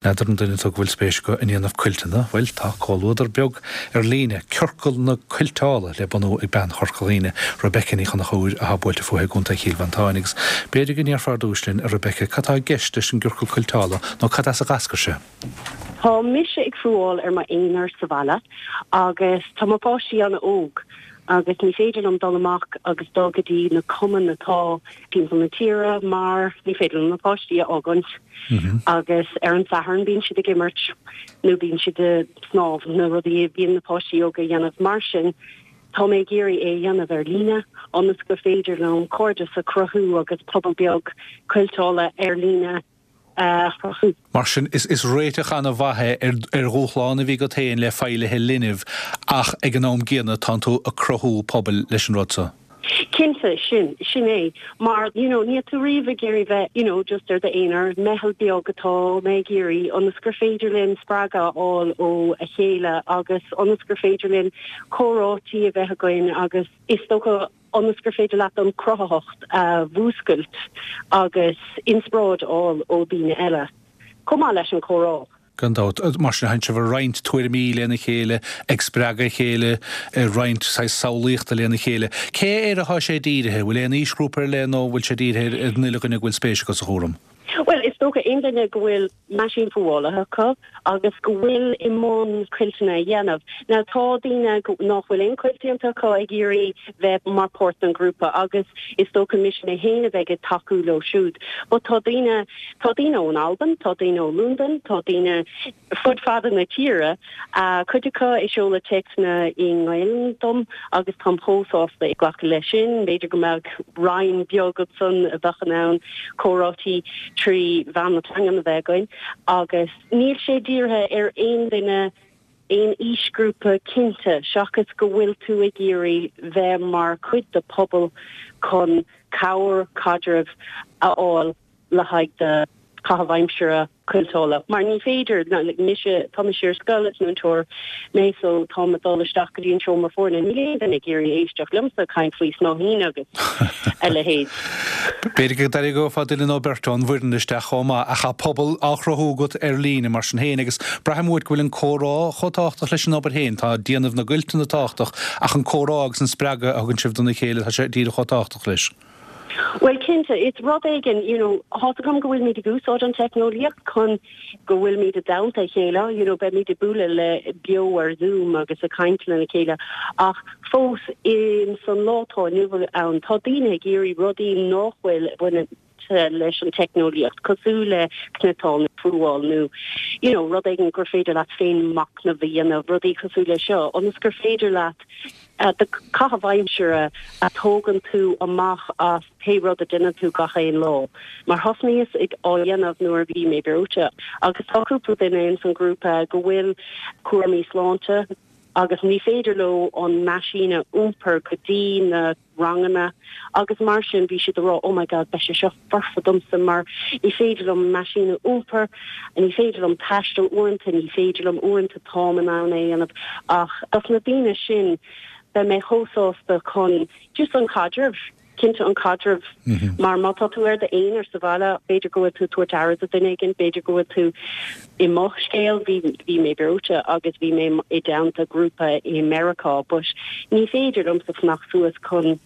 N'fheadar an duine tú go bhfuil spéis acu i ndéanamh cuilteanna? Bhuel, tá comhluadar beag ar líne, Ciorcal na Cuilteála, le bunú ag bean Chorca Dhuibhne, Rebecca Ní Chonchúir, athá buailte fúithi i gContae Chill Mhantáin. Agus b'fhéidir go ndéarfá ar dtúis linn, a Rebecca, cad tá i gceist leis an gCiorcal Cuilteála nó cad as a dh'eascair sé? Tá mise ag fuáil ar m'aonar sa bhaile agus tá mo pháistí an-óg agus ní féidir liom dul amach agus dul go dtí na cumainn atá timpeall na tíre mar ní féidir liom na páistí a fhágaint. Agus ar an Satharn bíonn siad ag imirt nó bíonn siad ag snámh, na rudaí a bhíonn na páistí óga a dhéanamh. Mar sin, tá mé ag iarraidh é a dhéanamh ar líne ionas gur féidir liom cairdeas a chruthú agus pobal beag cuilteála ar líne a chruthú. Mar sin, is réiteach an-mhaith é ar dhúshlán a bhí agat féin le feighlithe linbh ach ag an am gcéanna tánn tú ag cruthú pobail leis an rud so. Cinnte, sin, sin é. Mar, you know, níl tú riamh ag iarraidh bheith, you know, just ar d'aonar. Meitheal beag atá mé ag iarraidh ionas gur féidir linn spreagadh a fháil ó a chéile agus ionas gur féidir linn comhráití a bheith againn agus is dócha ionas gur féidir leat an cruthaitheacht a mhúscailt agus inspioráid a fháil ó daoine eile, chomh maith leis an chomhrá. Gan dabht. Mar sin, tánn sibh ag roinnt tuairimí lena chéile, ag spreagadh a chéile, ag roinnt saghas samhlaíochta lena chéile. Cé air atá sé dírithe? Bhfuil aon aoisghrúpa ar leith nó bhfuil sé dírithe ar an uile dhuine go bhfuil spéis acu sa chúram? Bhuel, is dócha aon duine go bhfuil meaisín fuála acu agus go bhfuil i mbun cuilteanna a dhéanamh. Now, tá daoine nach bhfuil aon chuilt déanta acu ag iarraidh bheith mar páirt den ghrúpa agus is dócha mise mé féin a bheidh ag tacú leo siúd. But tá daoine Tá daoine ón Albain, tá daoine ó Londain, tá daoine fud fada na tíre, cuid acu ag seoladh téacsanna i nGaelainn dom agus táim chomh sásta ag glacadh leis sin. B'fhéidir go mbeadh roinn beag ansan a bheadh in ann comhráití trí mheán na teangan a bheith againn agus níl sé dírithe ar aon duine, aon aoisghrúpa cinnte, seachas go bhfuil tú ag iarraidh bheith mar chuid de pobal chun cabhair, caidreamh a fháil. le haghaidh do chaitheamh aimsire cuilteála mar ní féidir, like mise, tá mise ar scoil, is múinteoir mé so táim ag dul isteach go dtí an seomra foirne, níl aon duine ag iarraidh éisteacht liomsa ag caint faoi snáithín agus a leithéid. B'fhéidir go dtarraingeofá duine nó beirt ón bhfoireann isteach chomh maith ach tá pobal á chruthú agat ar líne mar sin féin agus braithim uait go bhfuil an comhrá chomh tábhachtach leis an obair féin, tá déanamh na gcuilteanna tábhachtach ach an comhrá agus an spreagadh a thugann sibh dona chéile, tá sé díreach chomh tábhachtach leis. Bhuel, cinnte, is rud éigin, you know, tá's agam go bhfuilimid ag úsáid an teicneolaíocht chun go bhfuilimid i dteannta a chéile, you know, beimid ag bualadh le beo ar Zoom agus ag caint lena chéile ach fós in san lá atá inniu ann, tá daoine ag iarraidh rudaí nach bhfuil bainte leis an teicneolaíocht, cosúil le cniotáil nó fuáil nó, you know, rud éigin gur féidir leat féin machnamh a dhéanamh, rudaí cosúil le seo, ionas gur féidir leat do chaitheamh aimsire a thógann tú amach as pé rud a dhéanann tú gach aon lá. Mar thosnaíos ag á dhéanamh nuair a bhí mé breoite agus tá cúpla duine ins an ghrúpa go bhfuil cúraimí sláinte agus ní féidir leo an meaisín a iompar go dtí na ranganna agus mar sin bhí siad ag rá oh my god beidh sé seo foirfe domsa mar ní féidir liom an meaisín a iompar, ní féidir liom taisteal uaireanta, ní féidir liom uaireanta táim in ann é a dhéanamh ach dos na daoine sin beidh mé chomh sásta chun just an caidreamh, cinnte an caidreamh mar má tá tú ar d'aonar sa bhaile b'fhéidir go bhfuil tú ag tabhairt aire do duine éigin, b'fhéidir go bhfuil tú I mo scéal, bhí, bhí mé breoite agus bhí mé i dteannta grúpa i Meiriceá but ní féidir liomsa fanacht suas chun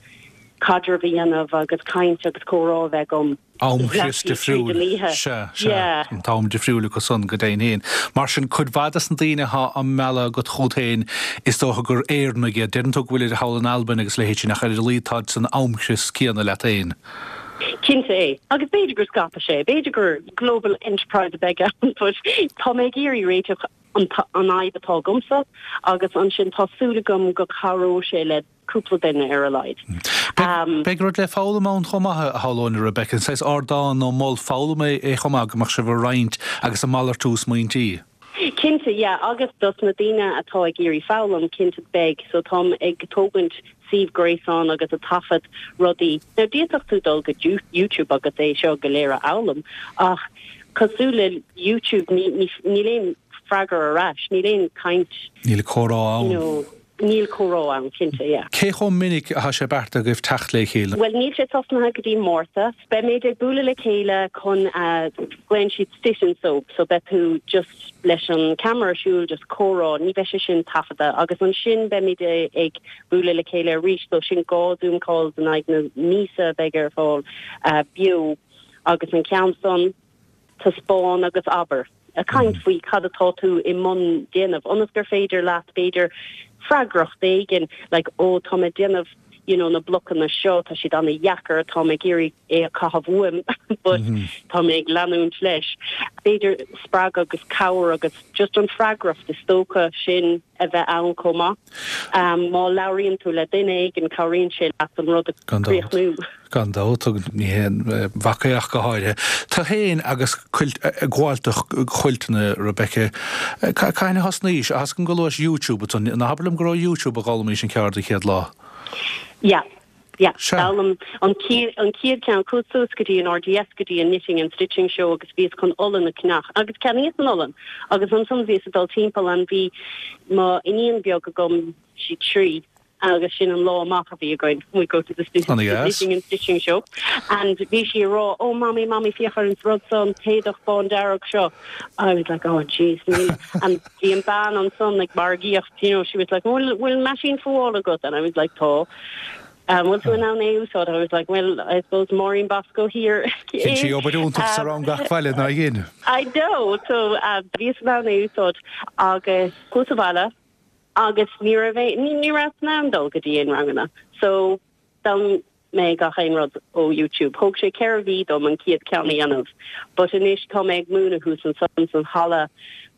caidreamh a dhéanamh agus caint agus comhrá a bheith agam Amchrios difriúil. Sea, sea. An t-am difriúil acu san, go deimhin féin. Mar sin, cuid mhaith des na daoine atá á mealladh agat chugat féin, is dócha gur Éireannaigh iad. Deireann tú go bhfuilid thall in Albain agus a leithéid sin, ach ar a laghad táid san amchrios céanna leat féin. Cinnte é. Agus b'fhéidir go scaipfidh sé, b'fhéidir gur global enterprise a bheidh ann but tá mé ag iarraidh réiteach an fhadhb atá agamsa agus ansin tá súil agam go cabhróidh sé le cúpla duine ar a laghad. Beidh rud le foghlaim ann chomh maith, a shamhlóinn, a Rebecca. Saghas ardán nó mol foghlama é chomh maith go mbeadh sibh ag roinnt agus ag malartú smaointí. Cinnte, yeah, agus dos na daoine atá ag iarraidh foghlaim, cinnte beidh, so táim ag tógaint suíomh gréasáin agus ag taifead rudaí. Now d'fhéadfadh tú dul go YouTube agus é seo go léir a fhoghlaim ach cosúil le YouTube ní, ní, níl aon freagra ar ais, níl aon caint. Níl comhrá ann. You know. Níl comhrá ann, cinnte, yeah. Cé chomh minic atá sé beartaithe agaibh teacht le chéile? Bhuel, níl sé tosnaithe go dtí Márta. Beimid ag bualadh le chéile chun, glaonn siad sit and sew, so beidh tú just leis an camera ar siúl, just comhrá, ní bheidh sé sin taifeadta. Agus ansin beimid ag bualadh le chéile arís, so sin 2 Zoom calls in aghaidh na míosa a bheidh ar fáil beo agus an ceann san, taispeáin agus abair. Ag caint faoi cad atá tú i mbun déanamh, ionas gur féidir leat, b'fhéidir, freagracht éigin, like, oh, tá mé ag déanamh, you know, na blocanna seo, tá siad an-dheacair, tá mé ag iarraidh é a chaitheamh uaim, but tá mé ag leanúint leis. B'fhéidir spreagadh agus cabhair agus just an freagracht is dócha sin a bheith ann chomh maith. Má labhraíonn tú le duine éigin, cabhraíonn sé leat an rud a chríochnú. Gan dabht, agus ní haon mhac é ach go háirithe. Tú féin agus cuilt, ag gabháil do chuilteanna, Rebecca, cathain a thosnaís? Tá a fhios agam go luais YouTube ansan, ná habair liom go raibh YouTube a d'fhoghlaimís an ceard an chéad lá? Yeah, yeah, d'fhoghlaim an chéad, an chéad ceann, chuas suas go dtí an RDS, go dtí an Knitting and Stitching Show agus bhíos chun olann a cheannach agus cheannaíos an olann agus ansan bhíos ag dul timpeall and bhí mo iníon beag agam, sí 3, agus sin an lá amach a bhí againn, we go to the knitting and stitching show and bhí sí ag rá oh mommy mommy féach ar an rud seo an t-éadach bán dearg seo I was like oh jeez níl and bhí an bean ansan ag margaíocht you know she was like bhfuil bhfuil meaisín fuála agat and I was like tá um, bhfuil tú in ann é a úsáid I was like well I suppose Maureen Bosco here Dhein sí obair iontach sa rang gach bhaile ná dhein. I know so uh, bhíos in ann é a úsáid agus chuas abhaile Agus ní raibh aon, ní rabhas in ann dul go dtí aon ranganna. So, d'fhoghlaim mé gach aon rud ó YouTube. Thóg sé 4 mhí dom an chéad ceann a dhéanamh. But anois tá mé ag múineadh thuas ansan san halla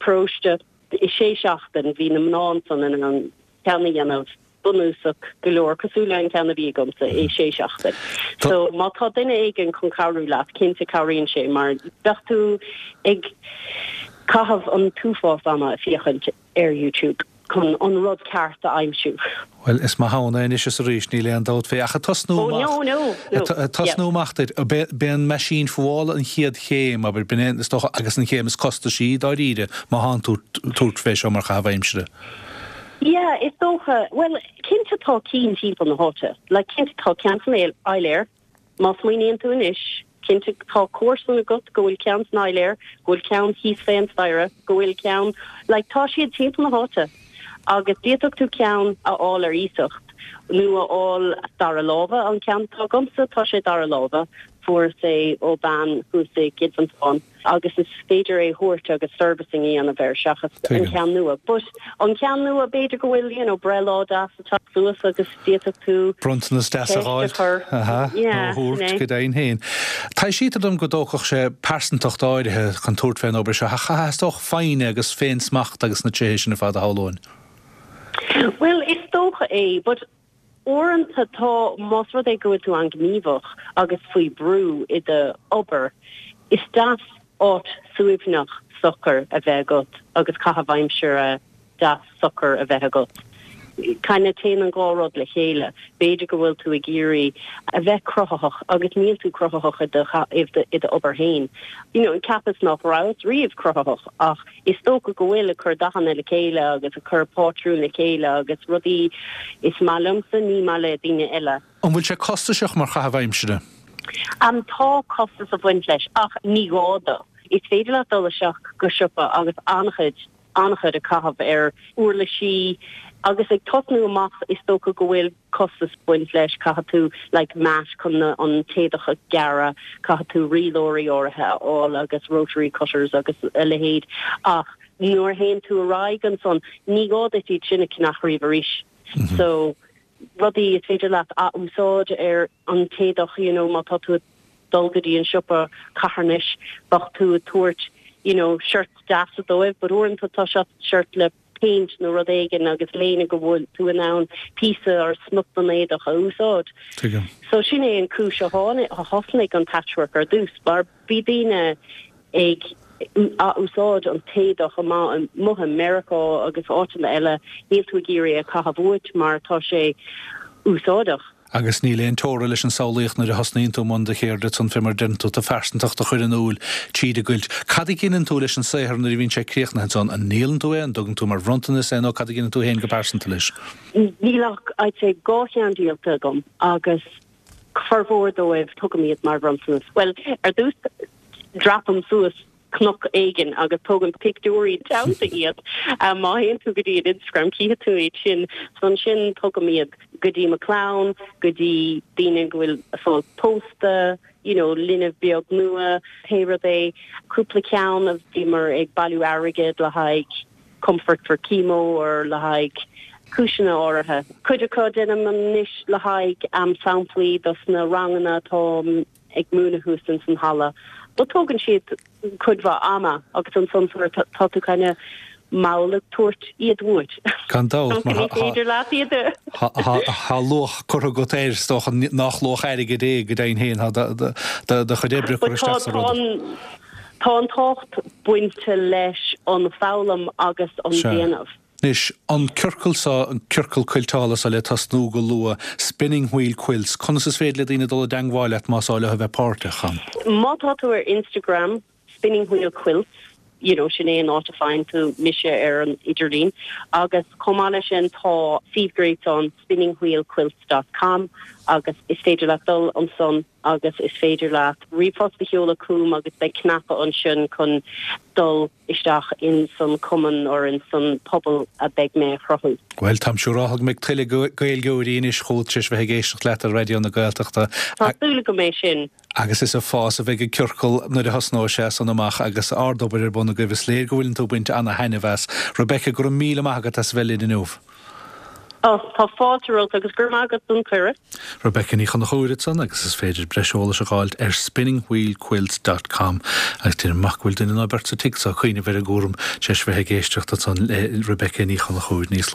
paróiste. I sé seachtain bhí na mná ansan in ann ceann a dhéanamh bunúsach go leor, cosúil le an ceann a bhí agamsa, i sé seachtain. So, má tá duine éigin chun cabhrú leat, cinnte cabhraíonn sé mar bheadh tú ag caitheamh an t-uafás ama ag féachaint. ar YouTube chun an rud ceart a aimsiú. Bhuel, is maith ann é anois is arís, níl aon dabht fé. Ach ag tosnú amach, no, no, no, ag tosnú amach duit, b'é an meaisín fuála an chéad chéim, abair, b'in é, is dócha, agus an chéim is costaisí, dáiríre, má thánn tú tabhairt fé seo mar chaitheamh aimsire. Yeah, is dócha. Bhuel, cinnte tá cinn timpeall na háite. Like, cinnte tá ceann san Áiléar. Má smaoiníonn tú anois, cinnte tá comharsan agat go bhfuil ceann san áiléar, go bhfuil ceann thíos fén staighre, go bhfuil ceann, like tá siad timpeall na háite agus d'fhéadfadh tú ceann a fháil ar iasacht nó a fháil dara láimhe, an ceann atá agamsa tá sé dara láimhe, fuaireas é ó bean thuas i gCill Mhantáin. agus is féidir é a thabhairt agus servicing a dhéanamh air seachas an ceann nua. But an ceann nua b'fhéidir go bhfuil you know breithlá deas ag teacht suas agus d'fhéadfadh tú Bronntanas deas a ceist a chur. Aha, nó a thabhairt go deimhin féin. Taibhsítear dom go dtógfadh sé pearsantacht áirithe chun tabhairt fén obair seo, ach theastódh foighne agus féin-smacht agus na tréithe sin ar fad a shamhlóinn. Bhuel, is dócha é, but Uaireanta tá, más rud é go bhfuil tú an-ghníomhach agus faoi brú i do obair, is deas áit suaimhneach socair a bheith agat agus caitheamh aimsire deas socair a bheith agat. Kinda téann an dhá rud le chéile. B'fhéidir go bhfuil tú ag iarraidh a bheith cruthaitheach agus níl tú cruthaitheach i do i do obair féin. You know, cheapas nach rabhas riamh cruthaitheach ach Is dócha go bhfuil, ag cur dathanna le chéile agus ag cur pátrún le chéile agus rudaí is maith liomsa, ní maith le daoine eile. An bhfuil sé costasach mar chaitheamh aimsire? Tá costas ag baint leis ach ní gá dó. Is féidir leat dul isteach go siopa agus an-chuid, an-chuid a chaitheamh ar uirlisí agus ag tosnú amach is dócha go bhfuil costas ag baint leis, caithfidh tú like mat chun an t-éadach a ghearradh, caithfidh tú rialóirí áirithe a fháil agus rotary cutters agus a leithéid ach nuair a théann tú ar aghaidh ansan ní gá duit iad sin a cheannach riamh arís. So rudaí is féidir leat ath-úsáid ar an t-éadach you know má tá tú ag dul go dtí an siopa carthanais bheadh tú ag tabhairt you know shirts deasa dóibh but uaireanta tá shirt le péint nó rud éigin agus léine go bhfuil tú in ann píosa or smut den éadach a úsáid. Tuigim. So sin é an cúis a tháinig, a thosnaigh an patchwork ar dtús mar bhí daoine ag ath-úsáid an t-éadach amuigh i Meiriceá agus áiteanna eile, níl tú ag iarraidh é a chaitheamh uait mar tá sé úsáideach. Agus níl aon teora leis an samhlaíocht nuair a thosnaíonn tú i mbun do cheirde ansan fé mar a deireann tú, do phearsantacht a chur in iúl tríd an gcuilt. Cad a dheineann tú leis an saothar nuair a bhíonn sé críochnaithe ansan? An ndíolann tú é, an dtugann tú mar bhronntanas é nó cad a dheineann tú féin go pearsanta leis? Níl ach, I'd say, 2 cheann díolta agam agus formhór dóibh tugaim iad mar bhronntanas. Bhuel, ar dtús dreapaim suas cnoc éigin agus tógaim pictiúirí teannta iad. Má théann tú go dtí an Instagram cífidh tú iad sin. So ansin tugaim iad go dtí mo clann, go dtí daoine go bhfuil ag fáil pósta, you know, linbh beag nua, pé rud é. Cúpla ceann a bhíomar ag bailiú airgead le haghaidh Comfort for Chemo or le haghaidh cúiseanna áirithe. Cuid acu déanaim anois le haghaidh samplaí dos na ranganna atá ag múineadh thuas ins an halla. But tógann siad cuid mhaith ama agus ansan sort tá tú kind of mall ag tabhairt iad uait. Gan dabht, mar ní féidir leat iad a. Tá luach curtha agat air, is dócha nach luach airgid é go deimhin féin, tá do chuid oibre curtha isteach sa rud. Tá an tábhacht bainte leis an foghlaim agus an déanamh. Anois, an ciorcal seo, an ciorcal cuilteála seo le tosnú go luath, Spinning Wheel Quilts, conas is féidir le daoine dul i dteangmháil leat más áil leo a bheith páirteach ann? Má tá tú ar Instagram, Spinning Wheel Quilts, you know, sin é an áit a faigheann tú mise ar an idirlíon. Agus chomh maith leis sin tá suíomh gréasáin spinningwheelquilts dot com agus is féidir leat dul ansan agus is féidir leat ríomhphost a sheoladh chugam agus beidh cnaipe ansin chun dul isteach in san cumann or in san pobal a beidh mé a chruthú. Bhuel, táim siúráltha go mbeidh tuilleadh Gaeilgeoirí anois chugat tar éis bheith ag éisteacht leat ar Raidió na Gaeltachta. Tá súil agam é sin. Agus is ag fás a bheidh an ciorcal nuair a thosnóidh sé san amach agus ard-obair ar bun agaibh. Is léir go bhfuileann tú ag baint ana-thaitneamh as. Rebecca, go raibh míle maith agat as a bheith linn inniu. Ó, tá fáilte romhat agus go raibh maith agat don chuireadh. Rebecca Ní Chonchúir ansan agus is féidir breis eolais a dh'fháilt ar spinningwheelquilts dot com agus déanaim amach go bhfuil duine nó beirt sa tigh so ag cuimhneamh ar an gcúram tar éis bheith ag éisteacht ansan le Rebecca Ní Chonchúir níos luaithe.